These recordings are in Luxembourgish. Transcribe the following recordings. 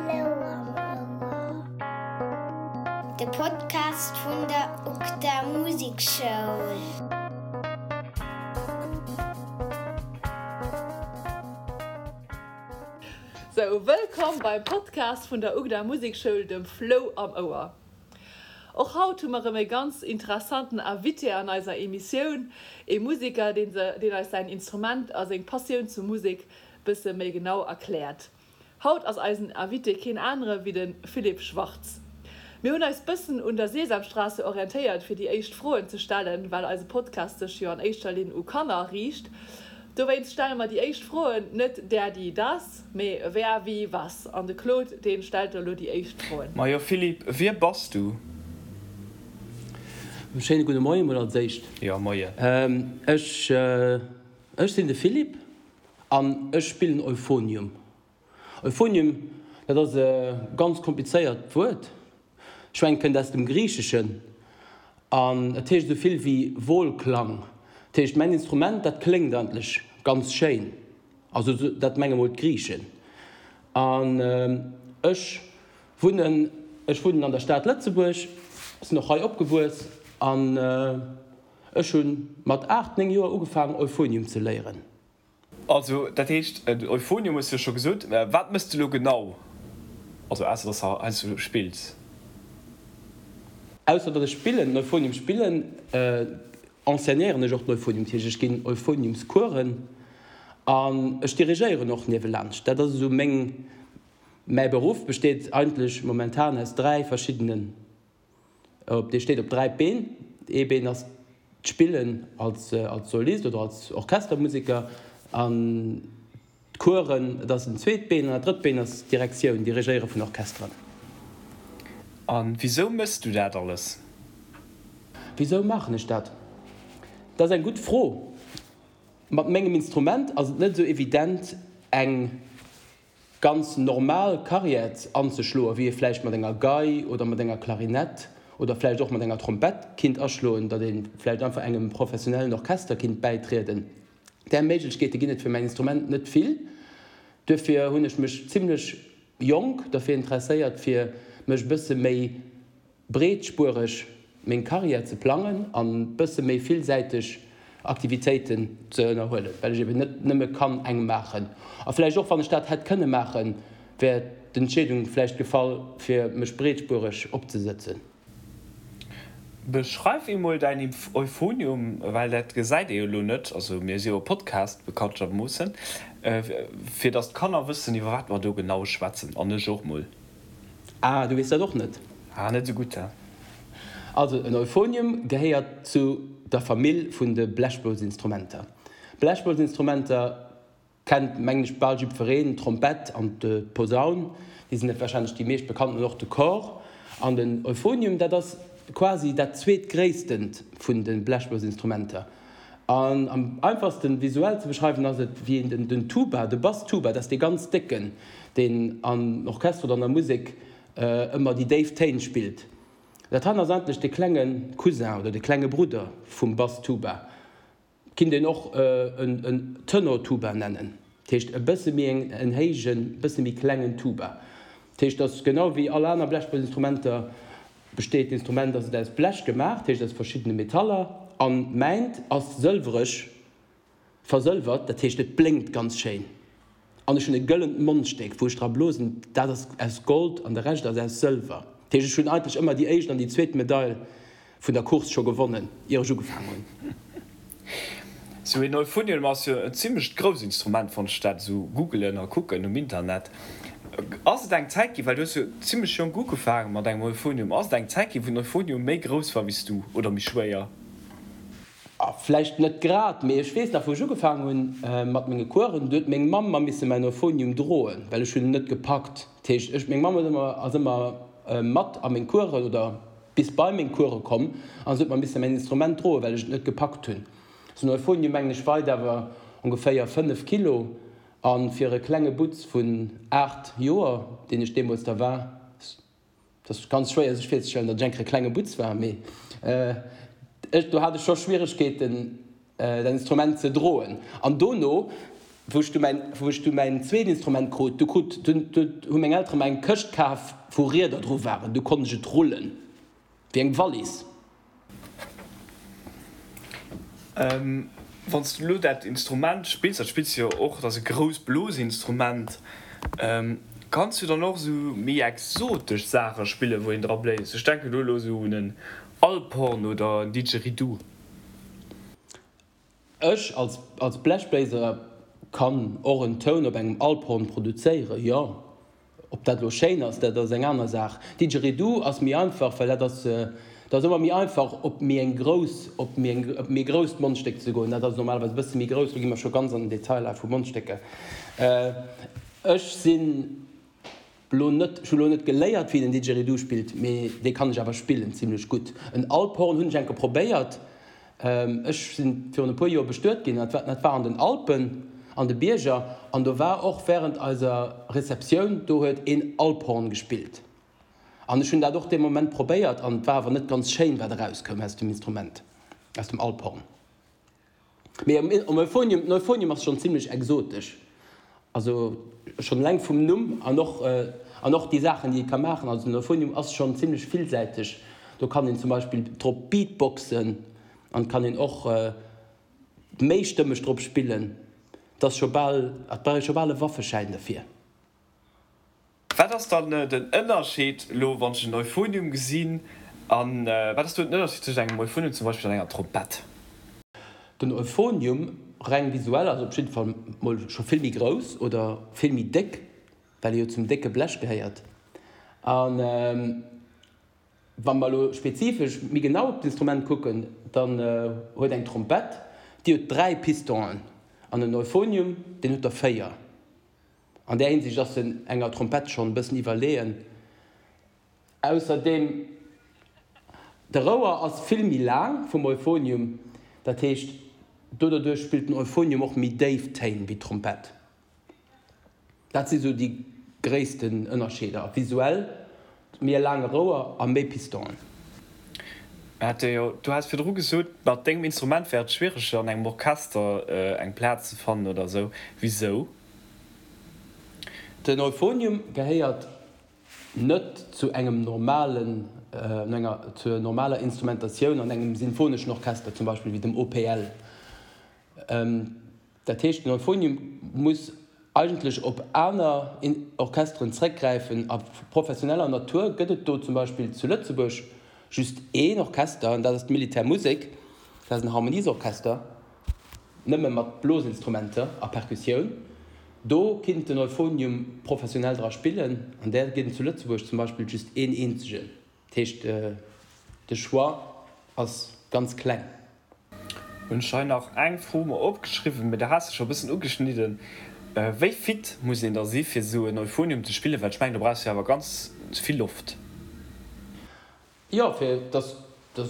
Flou am Ouer, de Podcast vun der UGDA Musekschoul. Sou, wëllkomm beim Podcast vun der UGDA Musekschoul, dem Flou am Ouer. Och haut hu mer erëm e ganz interessanten Invité an eiser Emissioun, ee Museker, deen deen eis säin Instrument a seng Passioun zur Musek bësse méi genau erkläert. Haut ass eisen Invité keen anere wéi de Philippe Schwartz. Mir hunn eis bëssen un der Sesamstraße orientéiert fir déi éischt Froen ze stellen, well eise Podcast sech jo an éischter Linn u Kanner riicht. Dowéinst stelle mer déi éischt Froen net der, die, das, mee wer, wie, was. An de Claude, dee stellt elo déi éischt Froen. Majo Philippe, wie bass du? Schéine gudde Moie mol als éischt. Jo, Moie. Ech, ech sinn de Philippe an ech spillen Euphonium. Euphonium, dat ass e ganz komplizéiert Wuert. Ech mengen, et kënnt aus dem Griicheschen an et heescht esou vill wéi Wohlklang. Dat heescht, mäin Instrument, dat kléngt eigentlech ganz schéin. Also dat menge mol d'Griichen. An ech wunnen, ech wunnen an der Stad Lëtzebuerg, sinn och hei opgewuess an ech hu mat 8, 9 Joer ugefaangen Euphonium ze léieren. Also, dat heescht, en Euphonium hues de jo scho gesot. Wat mëss de elo genau? Also ausser dass de heiansdo spills. Ausser datt ech spillen, den Euphonium spillen, enseignéieren ech och den Euphonium. Dat heescht, ech ginn Euphoniumscoursen an ech dirigéieren och niewelaanscht. Dat ass esou meng, mäi Beruff besteet eigentlech momentan aus 3 verschiddenen Op dee steet op 3 Been. Ee Been ass d'Spillen als als Solist oder als Orchestermuseker an d'Coursen, dat ass den zweet Been an dat drëtt Been ass d'Direktioun, Dirigéiere vun Orchesteren. A wisou méchs du dat alles? Wisou maachen ech dat? Dat ass eng gutt Fro. Mat mengem Instrument ass et net esou evident eng ganz normal Carrière anzeschloen, wéi ee vläicht mat enger Gei oder mat enger Klarinett oder vläicht och mat enger Trompett kinnt aschloen, datt ee vläicht einfach engem professionellen Orchester kinnt bäitrieden. Där Méiglechkeete ginn et fir mäin Instrument net vill. Duerfir hunn ech mech zimlech jonk derfir interesséiert, fir mech e bësse méi breetspuereg meng Karriär ze plangen an bësse méi villsäiteg Aktivitéiten ze ënnerhuelen, well ech eben net nëmme kann eng maachen. A vläicht och wann ech dat hätt kënne maachen, wär d'Entscheedung vläicht gefall fir mech breetspuereg opzesëtzen. Beschreif emol däin Euphonium, well dat gesäit ee jo elo net, also mir si jo e Podcast bekanntermoossen, fir datt d'Kanner wëssen iwwer wat mer do genau schwätzen, an ech och mol. Ah, du weess dat och net? Ah, net esou gutt, he? Also, en Euphonium gehéiert zu der Famill vun de Blechblosinstrumenter. Blechblosinstrumenter kennt, mengen ech, bal jiddwereen, d'Trompett an d'Posaun, déi sinn warscheinlech déi meescht bekannten, an och de Cor. An den Euphonium, dat ass quasi dat zweetgréisstent vun de Blechblosinstrumenter. An am einfachsten visuell ze beschreiwen ass et wéi een den Tuba, de Bass-Tuba, dat ass dee ganz décken, deen am Orchester oder an der Musek ëmmer déi déif Téin spillt. Dat han ass eigentlech de klenge Cousin oder de klenge Brudder vum Bass-Tuba. Kinnt een och en Tenor-Tuba nennen, dat heescht e bësse méi en héijen, bësse méi klengen Tuba. Dat heescht, dass genau wéi all aner Blechblosinstrumenter Besteet d'Instrument ass et aus Blech gemaach, dat heescht aus verschiddene Metaller, an mäint ass sëlwereg versëlwert, dat heescht et blénkt ganz schéin. An ech hunn e gëllent Mondstéck wou ech dra blosen, dat ass aus Gold an de Rescht ass aus Sëlwer. Dat heescht ech hunn eigentlech ëmmer déi éischt an déi zweet Medail vun der Course scho gewonnen, ier ech ugefaang hunn. Sou een Euphonium ass jo en zimlecht grousst Instrument, wann ech dat esou googelen a kucken um Internet. Ass et eng Zäit ginn, well du hues jo zimlech jonk ugefaange mat engem Euphonium, ass et eng Zäit ginn, wou den Euphonium méi grouss war wéi s du oder méi schwéier? Vläicht net grad, mee ech weess nach, wou ech ugefaangen hunn mat menge Coursen, do huet meng Mamm mer misse mäin Euphonium droen, well ech hunn en net gepackt. Dat heescht, ech, meng Mamm huet ëmmer, ass ëmmer mat a meng Coursen oder bis bei meng Course komm an se huet mer misse mäin Instrument droen, well ech et net gepackt hunn. Sou en Euphonium, mengen ech, weit awer ongeféier 5 Kilo a fir e klenge Butz vun 8 Joer, deen ech deemools da war, et ass ganz schwéier sech virzestellen, datt ech eng Kéier e klenge Butz war, mee ech, do hat ech scho Schwieregkeeten, dat Instrument ze droen. An dono. Wou ech du mäin, wou ech du mäin zweet Instrument krut, du krut, du, du hu meng Eltere mer eng Këscht kaf, wou Rieder dru waren, du konnt ech et rullen, wéi eng Wallis. Wann s du elo dat Instrument spills, dat spills du jo och, dat ass e grousst Blosinstrument, kanns du dann och esou méi exotesch Saache spillen, wou een dra bléist? Ech denken do elo esou un en Alphorn oder en Didgeridoo. Ech als als Blechbléiser kann och en Toun op engem Alphorn produzéieren, jo. Ob dat elo schéin ass, dat ass eng aner Saach. Didgeridoo ass méi einfach, well dat ass, dat ass ëmmer méi einfach op méi eng grouss, op méi eng, op méi grousst Mondstéck ze goen. Dat ass normalerweis e bësse méi grouss, do gi mer scho ganz an den Detailer vu Mondstécker. Ech sinn. Lo net, ech hu lo net geléiert wéi een en Didgeridoo spillt, mee dee kann ech awer spillen zimlech gutt. En Alphorn hunn ech enke probéiert, ech sinn virun e puer Joer bestuet ginn, dat war dat war an den Alpen, an de Bierger, an do war och während eiser Receptioun, do huet een Alphorn gespillt an ech hunn dat och dee Moment probéiert an et war awer net ganz schéin wat erauskoum aus dem Instrument, aus dem Alphorn. Mee um Euphonium, den Euphonium ass schonn zimlech exotesch, also schonn eleng vum Numm an och an och déi Saachen déi et ka maachen. Also den Euphonium ass schonn zimlech villsäiteg, do kann een zum Beispill drop beatboxen an et kann een och méistëmmeg drop spillen. Et ass scho bal, et brauch ee scho bal e Waffeschäin derfir. Wat ass dann den Ënnerscheed elo wann ech en Euphonium gesinn an wat ass do den Ënnerscheed tëscht engem Euphonium zum Beispill an enger Trompett? Den Euphonium, reng visuell, ass op jidde Fall mol scho vill méi grouss oder vill méi déck, well e jo zum décke Blech gehéiert. A wa mer elo spezifesch méi genau op d'Instrument kucken, dann huet eng Trompett, déi huet 3 Pistonen an en Euphonium, deen huet der 4. An där Hinsicht ass en enger Trompett schonn e bëssen iwwerleeën. Ausserdeem, de Rouer ass vill méi laang vum Euphonium, dat heescht doderduerch spillt den Euphonium och méi déif Téin wéi d'Trompett. Dat si sou déi gréissten Ënnerscheeder, visuell méi e laange Rouer a méi Pistonen. Du has virdru gesot, mat dengem Instrument wär et schwiereger an engem Orchester eng Plaz ze fannen oder sou. Wisou? Den Euphonium gehéiert net zu engem normalen, enger, zur normaler Instrumentatioun an engem sinfoneschen Orchester, zum Beispill wéi dem OPL. Dat heescht, den Euphonium muss eigentlech op aner Orchesteren zréckgräifen. A professioneller Natur gëtt et do zum Beispill zu Lëtzebuerg just een Orchester, an dat ass d'Militärmusek. Dat ass en Harmoniesorchester, nëmme mat Blosinstrumenter a Perkussioun. Do kinnt den Euphonium professionell dra spillen, an där ginn et zu Lëtzebuerg zum Beispill just een eenzegen. Dat heescht, de Choix ass ganz kleng. Hunn ech hei nach eng Fro mer opgeschriwwen, mee der has de scho e bëssen ugeschnidden. Wéi fit muss een da si fir esou en Euphonium ze spillen, well ech mengen do brauchs de jo awer ganz vill Loft. Jo, fir dass, dass,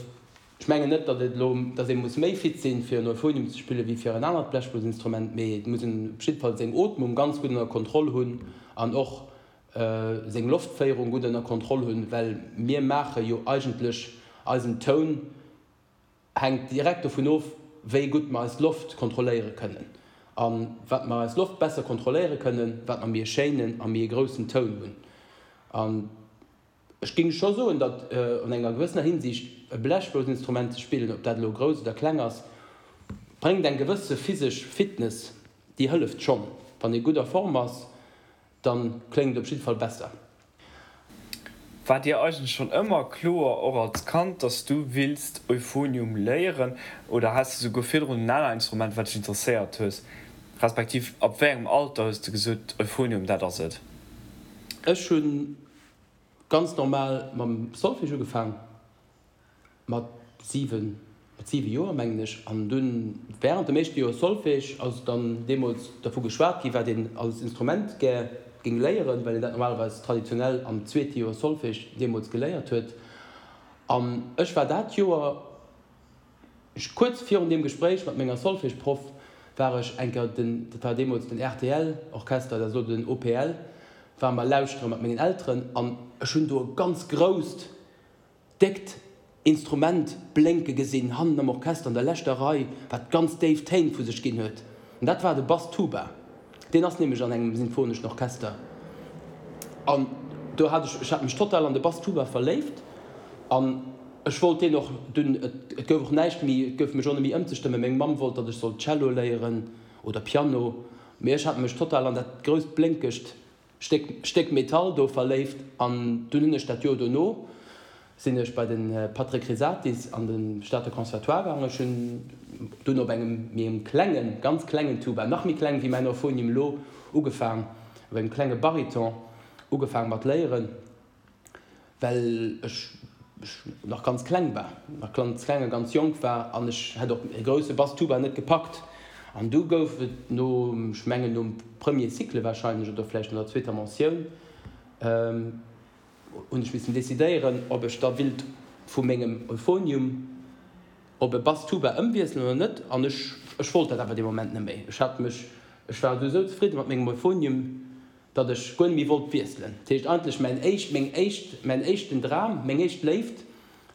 ech mengen net, datt et elo, datt ee muss méi fit sinn, fir en Euphonium ze spillen, wéi fir en anert Blechblosinstrument, mee et muss een op jidde Fall seng Ootmung ganz gutt ënner Kontroll hunn an och seng Loftféierung gutt ënner Kontroll hunn, well mir maache jo eigentlech eisen Toun hänkt direkt dovun of, wéi gutt mer eis Loft kontrolléiere kënnen. A wat mer eis Loft besser kontrolléiere kënnen, wat mer méi e schéinen a méi e groussen Toun hunn. An ech géing scho soen, datt an enger gewëssener Hinsicht e Blechblousinstrument ze spillen, ob dat elo grouss oder kleng ass, bréngt eng gewësse physesch Fitness, déi hëlleft schonn. Wann ee gutt a Form ass, Dann kléngt et op jidde Fall besser. War dir eigentlech schonn ëmmer kloer, och als Kand, dass du willst Euphonium léieren oder has de souguer virdrun en aner Instrument wat dech interesséiert hues, respektiv ab wéi engem Alter hues de gesot Euphonium dat ass et? Ech hunn ganz normal mam Solfège ugefaang. Mat 7, mat 7 Joer mengen ech. An dunn während dem éischte Joer Solfège ass dann deemools dervu geschwat gi wat een als Instrument gär géing léieren, well een dat normalerweis traditionell am zweete Joer Solfège deemools geléiert huet. An ech war dat Joer, kuerz virun deem Gespréich mat menger Solfège-Proff, war ech eng Kéier den, dat war deemools den RTL-Orchester, dat ass elo den OPL, ware mer lauschtere mat mengen Elteren an ech hunn do e ganz grousst, déckt Instrument blénke gesinn, hannen am Orchester an der leschter Rei, wat ganz déif Téin vu sech ginn huet. An dat war de Bass-Tuba. Deen ass nämlech an engem sinfoneschen Orchester. An do hat ech, ech hat mech total an de Bass-Tuba verléift an ech wollt deen och dunn, et gouf och näischt méi, et gouf mech och net méi ëmzestëmmen. Meng Mamm wollt, datt ech sollt Cello léieren oder Piano, mee ech hat mech total an dat grousst blénkegt Stéck Stéck Metall do verléift an dunn hunn ech dat Joer dono sinn ech bei de Patrick Risatis an de Stater Conservatoire gaangen. Ech hunn dunn op engem méi engem klengen, ganz klengen Tuba, nach méi kleng wéi mäin Euphonium elo, ugefaang, op engem klenge Bariton ugefaang mat léieren. Well ech nach ganz kleng war, nach ganz kleng a ganz jonk war an ech hätt och e grousse Bass-Tuba net gepackt. An du gouf et no, ech mengen nom Premier Cycle wahrscheinlech oder vläicht no der zweeter Mentioun, hunn ech missen decidéieren, ob ech da willt vu mengem Euphonium op e Bass-Tuba ëmwiesselen oder net. An ech, ech wollt dat awer dee Moment net méi. Ech hat mech, ech war esou zefridde mat mengem Euphonium, datt ech guer net méi wollt wiesselen. Dat heescht eigentlech mäin éischt, meng éischt, mäin éischten Dram, meng éischt Léift,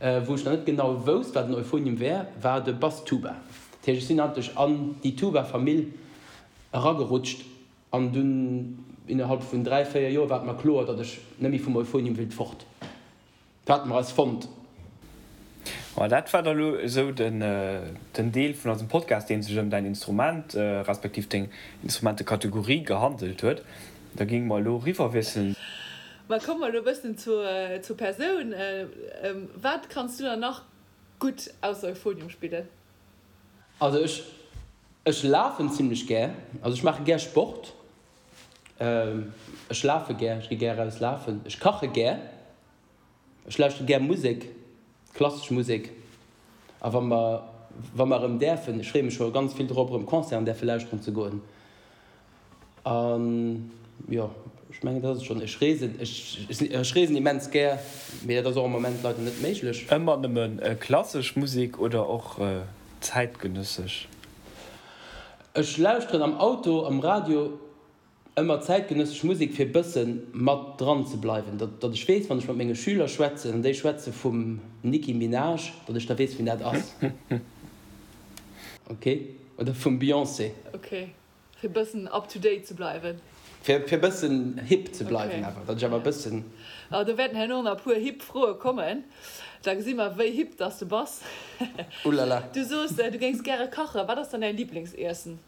wou ech nach net genau wousst, wat en Euphonium wär, war de Bass-Tuba. Dat heescht, ech sinn eigentlech an déi Tuba-Famill eragerutscht an dunn innerhalb vun 3, 4 Joer war et mer kloer, datt ech net méi vum Euphonium willt fort. Dat hate mer eis fonnt. Ma dat war da lo esou den Deel vun eisem Podcast, dee sech ëm däin Instrument, respektiv deng Instrumentekategorie gehandelt huet. Da géinge mer elo eriwwerwiesselen. Ma komme mer elo e bëssen zur Persoun. Wat kanns du dann nach gutt ausser Euphonium spillen? Also ech, ech lafen zimlech gär. Also ech maache gär Sport. Ech lafe gär, ech gi gär eraus lafen. Ech kache gär. Ech lauschtere gär Musek, klassesch Musek. A wa mer, wa mer erëm däerfen, ech freeë mech scho ganz vill drop, erëm Concerten däerfe lauschteren ze goen. An jo, ech mengen, dat ass et schonn. Ech reesen, ech, ech reesen immens gär, mee dat ass och am Moment leider net méiglech. Ëmmer nëmme klassesch Musek oder och zäitgenëssesch? Ech lauschteren am Auto, am Radio ëmmer zäitgenëssesch Musek fir bëssen mat dran ze bleiwen, datt datt ech weess wann ech mat menge Schüler schwätzen an déi schwätze vum Nicki Minaj, datt ech da weess wien dat ass. Ok, oder vum Beyoncé. Ok, fir bëssen up to date ze bleiwen. Fir fir bëssen hip ze bleiwen awer, datt ech awer bëssen. Ah, do wäerten herno nach e puer hip Froe kommen, da gesi mer wéi hip dass de bass. Ulala. Du soos du géings gäre kachen, wat ass dann däin Liblingsiessen?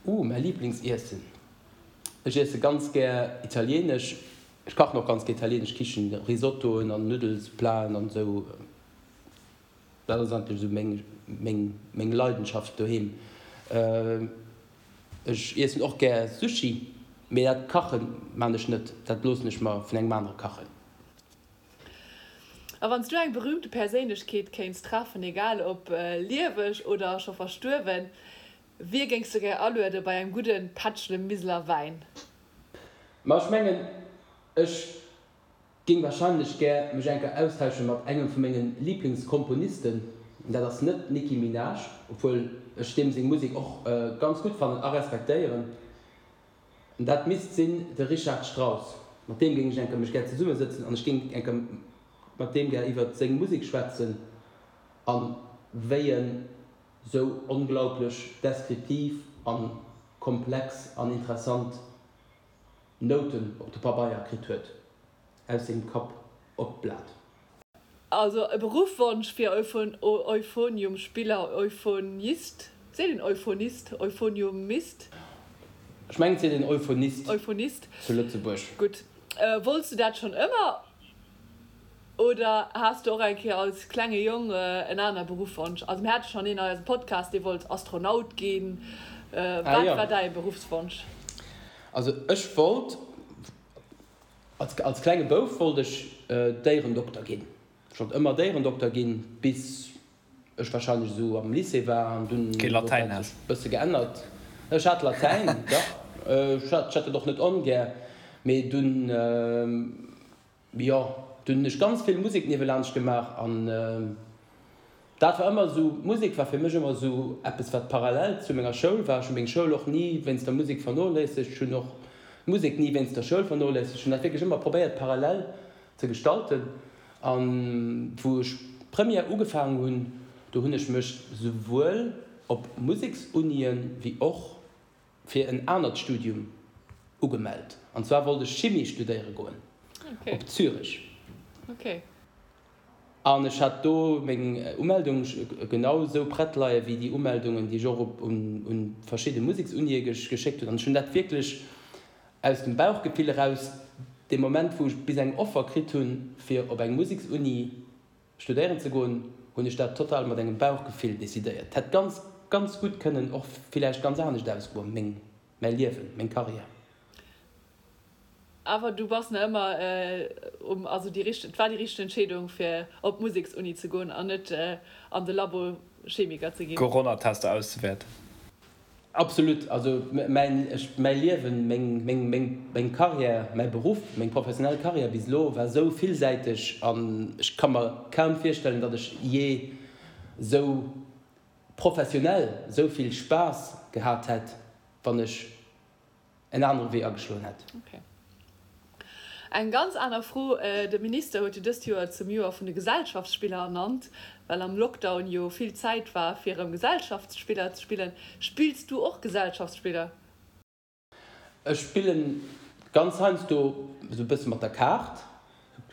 Ooh, mäi Liblingsiessen? Ech iesse ganz gär italienesch. Ech kachen och ganz gär italienesch Kichen, Risottoen an Nuddelsplaten an esou. Dat ass eigentlech esou meng, meng, meng Leidenschaft doheem. Ech iessen och gär Sushi, mee dat kache man ech net, dat loossen ech mer vun engem anere kachen. A wann s du eng berühmte Perséinlechkeet kéints treffen, egal ob lieweg oder scho verstuerwen, wie géings du gär aluede bei engem gudde Pättchle Miseler Wäin? Ma ech mengen, ech géing wahrscheinlech gär mech eng Kéier austausche mat engem vu menge Liblingskomponisten. Dat ass net d'Nicki Minaj, obwuel ech deem seng Musek och ganz gutt fannen a respektéieren. Dat misst sinn de Richard Strauss. Mat deem géing ech eng Kéier mech gär zesummesëtzen an ech géing eng Kéier mat deem gär iwwert seng Musek schwätzen a wéi en sou onglaublech deskriptiv a komplex an interessant Nouten op de Pabeier kritt huet, aus sengem Kapp op d'Blat. Also e Beruffwonsch fir Euphoniumspiller, Euphonist, seet een Euphonist, Euphoniumist? Ech mengen et seet een Euphonist Euphonist, zu Lëtzebuerg. Gutt. Wollts du dat schonn ëmmer oder has du och eng Kéier als klenge Jong en aner Beruffwonsch? Also mir hate schonn een an eisem Podcast, dee wollt Astronaut ginn. Ah Wat jo. war däi Beruffswonsch? Also ech wollt Als als klenge Bouf wollt ech Déierendokter ginn. Ech wollt ëmmer Déierendokter ginn, bis ech wahrscheinlech esou am Lycée war an dunn Kee huet Latäin dat has. sech bësse geännert. Ech hat Latäin, dach. Ech hat ech hat dat och net ongär, mee dunn, jo, dunn hunn ech ganz vill Musek niewelaanscht gemaach an Dat war ëmmer esou, d'Musek war fir mech ëmmer esou eppes wat parallel zu menger Schoul war. Ech hu meng Schoul och ni wéinst der Musek vernoléissegt, ech hunn och d'Musek ni wéinst der Schoul vernoléissegt. Ech hunn dat wierklech ëmmer probéiert parallel ze gestalten. A wou ech d'Première ugefaangen hunn, do hunn ech mech souwuel op Museksunien wéi och. fir en anert Studium ugemellt. An zwar wollt ech Chimie studéiere goen op Zürich. An ech hat do meng Umeldung genau esou prett leie wéi déi Umeldungen, déi ech och op un verschidde Museksunie geschéckt hunn. An ech hunn dat wierklech aus dem Bauchgefill eraus, dee Moment wou ech bis eng Offer kritt hunn, fir op eng Museksuni studéieren ze goen, hunn ech dat total mat engem Bauchgefill decidéiert. Et hätt ganz, ganz gutt kënnen och villäicht ganz anescht ausgoen, meng, mäi Liewen, meng Karriär. Awer du bass nach ëmmer um, also déi richteg, et war déi richteg Entscheedung fir op d'Museksuni ze goen an net an de Labo Chemiker ze ginn? Coronatester auszewäerten. Absolut, also mäin, ech, mäi Liewen, meng, meng, meng, meng Karriär, mäi Beruff, meng professionell Karriär bis elo war esou villsäiteg an ech ka mer kaum virstellen, datt ech jee esou professionell esou vill Spaass gehat hätt, wann ech en anere Wee ageschloen hätt. Ok. Eng ganz aner Fro, De Minister huet jo dëst Joer zum Joer vun de Gesellschaftsspiller ernannt, well am Lockdown jo vill Zäit war fir erëm Gesellschaftsspiller ze spillen. Spills du och Gesellschaftsspiller? Ech spillen ganz heiansdo esou e bësse mat der Kaart.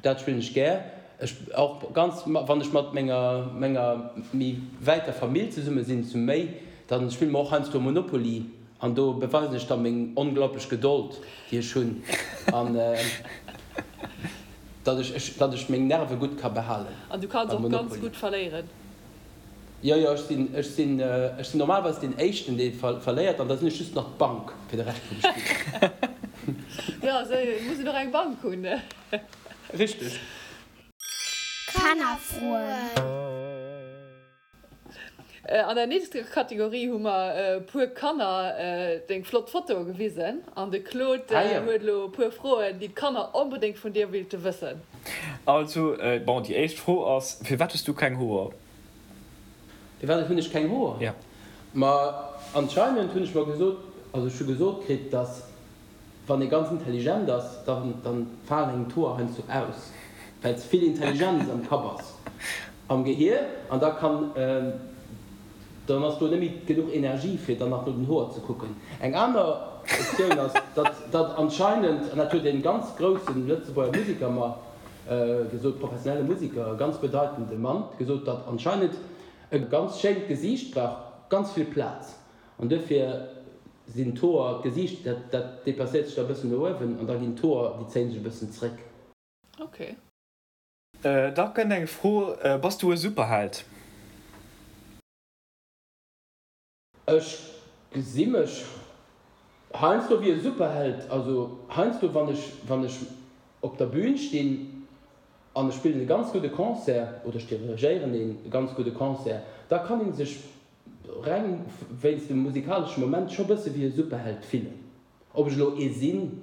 Dat spillen ech gär. Ech och ganz, wann ech mat menger menger méi wäiter Famill zesumme sinn, zu méi, dann spille mer och heiansdo Monopoly an do beweisen ech da meng onglaublech Gedold, déi ech hunn an datt ech ech datt ech meng Nerve gutt ka behalen An du kanns beim och ganz Monopoly. gutt verléieren? Jo, jo, ech sinn, ech sinn, ech sinn normalerweis deen Éischten, dee verléiert, an da sinn ech just nach d'Bank fir de Rescht vum Spill. Jo, esou muss een och eng Bank hunn. Richteg. Kannerfroen. An der nächster Kategorie hu mer e puer Kanner deng flott Fotoe gewisen an de Claude huet elo e puer Froen, déi d'Kanner onbedéngt vun dir wéilte wëssen. Also, bon, déi éischt Fro ass, Firwat hues du keng Hoer? Firwat hunn ech keng Hoer? Ja. Ma anscheinend hunn ech mer gesot, also ech hu gesot kritt, dass wann ee ganz intelligent ass, dann dann falen engem d'Hoer heiansdo aus, well ze vill Intelligenz am Kapp ass, am Gehier, an da kann, dann ass do net méi genuch Energie fir dann nach no den Hoer ze kucken. Eng aner Optioun ass, datt datt anscheinend, an dat huet e ganz groussen Lëtzebuerger Musiker mer gesot, professionelle Musiker, e ganz bedeitende Mann, gesot, datt anscheinend e ganz schéint Gesiicht brauch ganz vill Plaz an duerfir sinn d'Hoer, d'Gesiicht, dat dat deplacéiert sech da e bëssen no uewen an da ginn d'Hoer, déi zéie sech e bëssen zréck. Ok. Da kënnt eng Fro, Bass du e Superheld? Ech gesi mech heiansdo wéi e Superheld. Also heiansdo wann ech wann ech op der Bühn stinn an ech spillen e ganz gudde Concert oder ech dirigéieren een ganz gudde Concert, da kann ee sech reng wéinst dem musikalesche Moment scho bësse wéi e Superheld fillen. Ob ech elo ee sinn,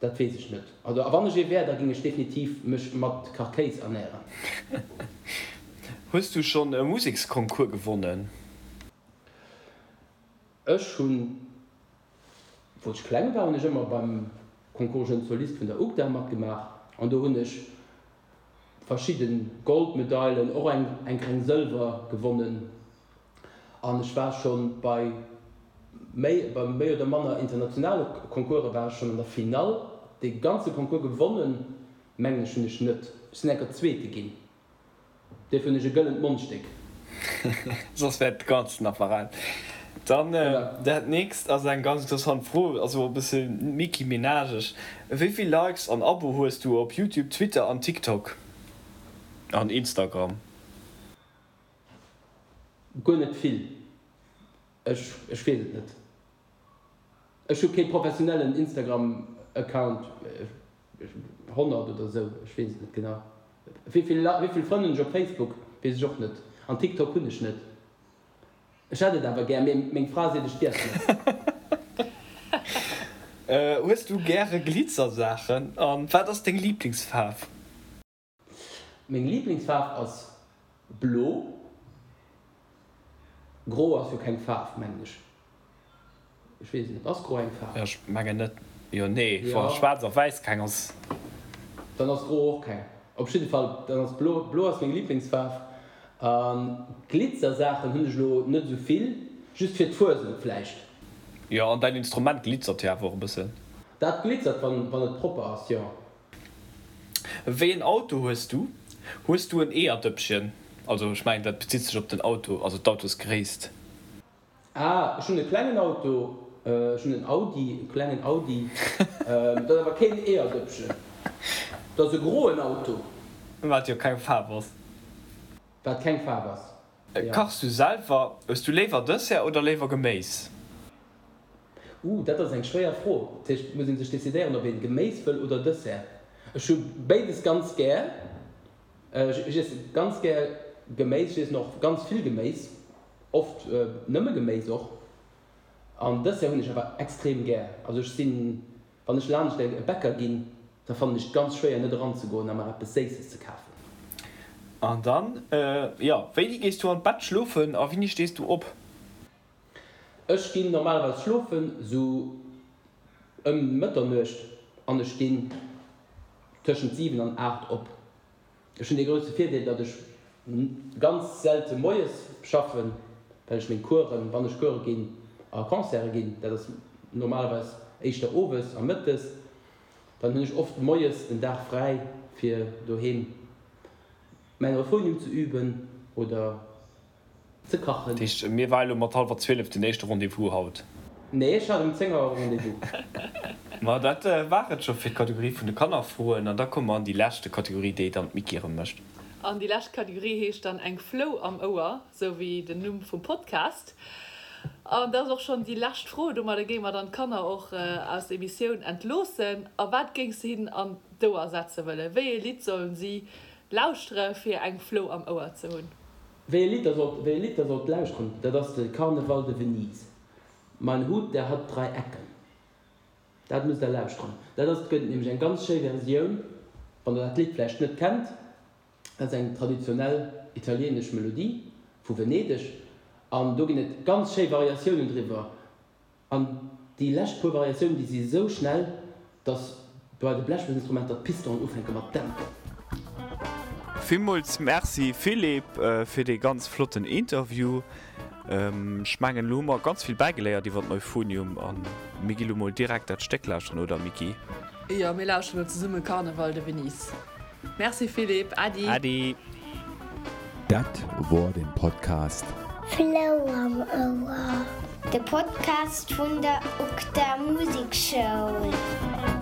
dat weess ech net. Also a wann ech ee wär, da géing ech definitiv mech mat Kachkéis ernären. Hues du schonn e Museksconcours gewonnen? Ech hunn, wou ech kleng war, hunn ech ëmmer beim Concours Jeune Soliste vun der UGDA matgemaach an do hunn ech verschidde Goldmedailen, och eng eng kleng Sëlwer gewonnen an ech war schonn bei méi bei méi oder manner internationale Concourse war ech schonn an der Finall. Dee ganze Concours gewonnen, mengen ech, hunn ech net. Ech sinn eng Kéier Zweete ginn. Duerfir hunn ech e gëllent Mondstéck. Soss wär et ganzen Apparat. Dann dat nächst ass eng ganz interessant Fro, ass och e bësse Micky Minageg. Wéi vill Likes an Abo hues du op Youtube, Twitter an TikTok? An Instagram? Guer net vill. Ech weess et net. Ech hu kee professionellen Instagram Account, 100 oder sou, ech weess et net genau. Wéivill wéivill Frënn hunn ech op Facebook, weess ech och net. An TikTok hunn ech net. Ech hätt et awer gär, mee meng Fra seet ech dierf net. Hues du gäre Glitzersaachen? An wat ass deng Liblingsfaarf? Meng Lieblingsfaarf ass blo. Gro ass jo keng Faarf, mengen ech. Ech weess et net. Ass gro eng Faarf? Ech mengen net. Jo, nee, wa schwaarz a wäiss keng ass. Dann ass gro och keng. Op jidde Fall, dann ass blo. Blo ass meng Lieblingsfaarf. A Glitzersaachen hunn ech elo net esou vill. Just fir d'Fuesent vläicht. Jo, an däin Instrument glitzert jo awer och e bëssen. Dat glitzert, wann et propper ass, jo. Wéi en Auto hues du? Hues du en Eeërdëppchen? Also ech mengen dat bezitt sech op den Auto, also d'Autosgréisst. Ah, ech hunn e klengen Auto, ech hunn en Audi, e klengen Audi. Dat ass awer keen Eeërdëppchen, dat ass e groen Auto. Wat jo keng Faarf ass. Wat keng Faarf ass, jo. Kachs du selwer? Hues du léiwer Dessert oder léiwer Geméis? Uh, dat ass eng schwéier Fro. Dat heescht, et muss ee sech decidéieren, ob een Geméis wëll oder Dessert. Ech hu béides ganz gär. Ech iesse ganz gär Geméis, ech iessen och ganz vill Geméis, oft nëmme Geméis och. An Dessert hunn ech awer extrem gär. Also ech sinn, wann ech laanscht e Bäcker ginn, da fannen ech et ganz schwéier net eranzegoen a mer eppes Séisses ze kafen. An dann, jo, wéini gees du an d'Bett schlofen a wéini stees du op? Ech ginn normalerweis schlofen sou ëm Mëtternuecht an ech stinn tëschent 7 an 8 op. Ech hunn dee grousse Virdeel, datt ech ganz selte moies schaffen, well ech meng Coursen, wann ech Course ginn, a Concerte ginn, dat ass normalerweis éischter owes a mëttes. Dann hunn ech oft moies den Dag fräi fir doheem mäin Euphonium ze üben oder ze kachen. Dat heescht, mir war elo mat hallwer 12 den éischte Rendez-vous haut? Nee, ech hat um 10 Auer e Rendez-vous. Ma dat war et scho fir d'Kategorie vun de Kannerfroen. An da komme mer an déi leschte Kategorie, déi dann d'Micky erëm mécht. An déi lescht Kategorie heescht dann Eng Flou am Ouer, sou wéi den Numm vum Podcast. An dat ass och schonn déi lescht Fro. Domadder géinge mer dann d'Kanner och aus der Emissioun entloossen. A wat géings de hinnen an d'Ouer setze wëllen? Wéi ee Lidd sollen si lauschtere fir eng Flou am Ouer ze hunn? Wéi e Lidd der sollt, wéi e Lidd der sollt lauschteren, dat ass de Karneval de Venise. Mein Hut, der hat drei Ecken. Dat musst der lauschteren. Dat ass, et gëtt nämlech eng ganz schéi Versioun, wann der dat Lidd vläicht net kennt. Dat ass eng traditionell italienesch Melodie vu Venedeg an do ginn et ganz schéi Variatiounen driwwer. An déi lescht puer Variatiounen, déi si esou schnell, dass bei de Blechblosinstrumenter d'Pistonen ufänke mat dämpen. Villmools Merci Philippe fir dee ganz flotten Interview. Ech mengen elo hu mer ganz vill bäigeléiert iwwer d'Euphonium a mir gi lo mol direkt dat Stéck lauschteren, oder Micky? Jo, mir lauschteren elo zesumme Carneval de Venise. Merci Philippe, Äddi. Äddi. Dat wor den Podcast. Flou am Ouer, de Podcast vun der UGDA Musekschoul.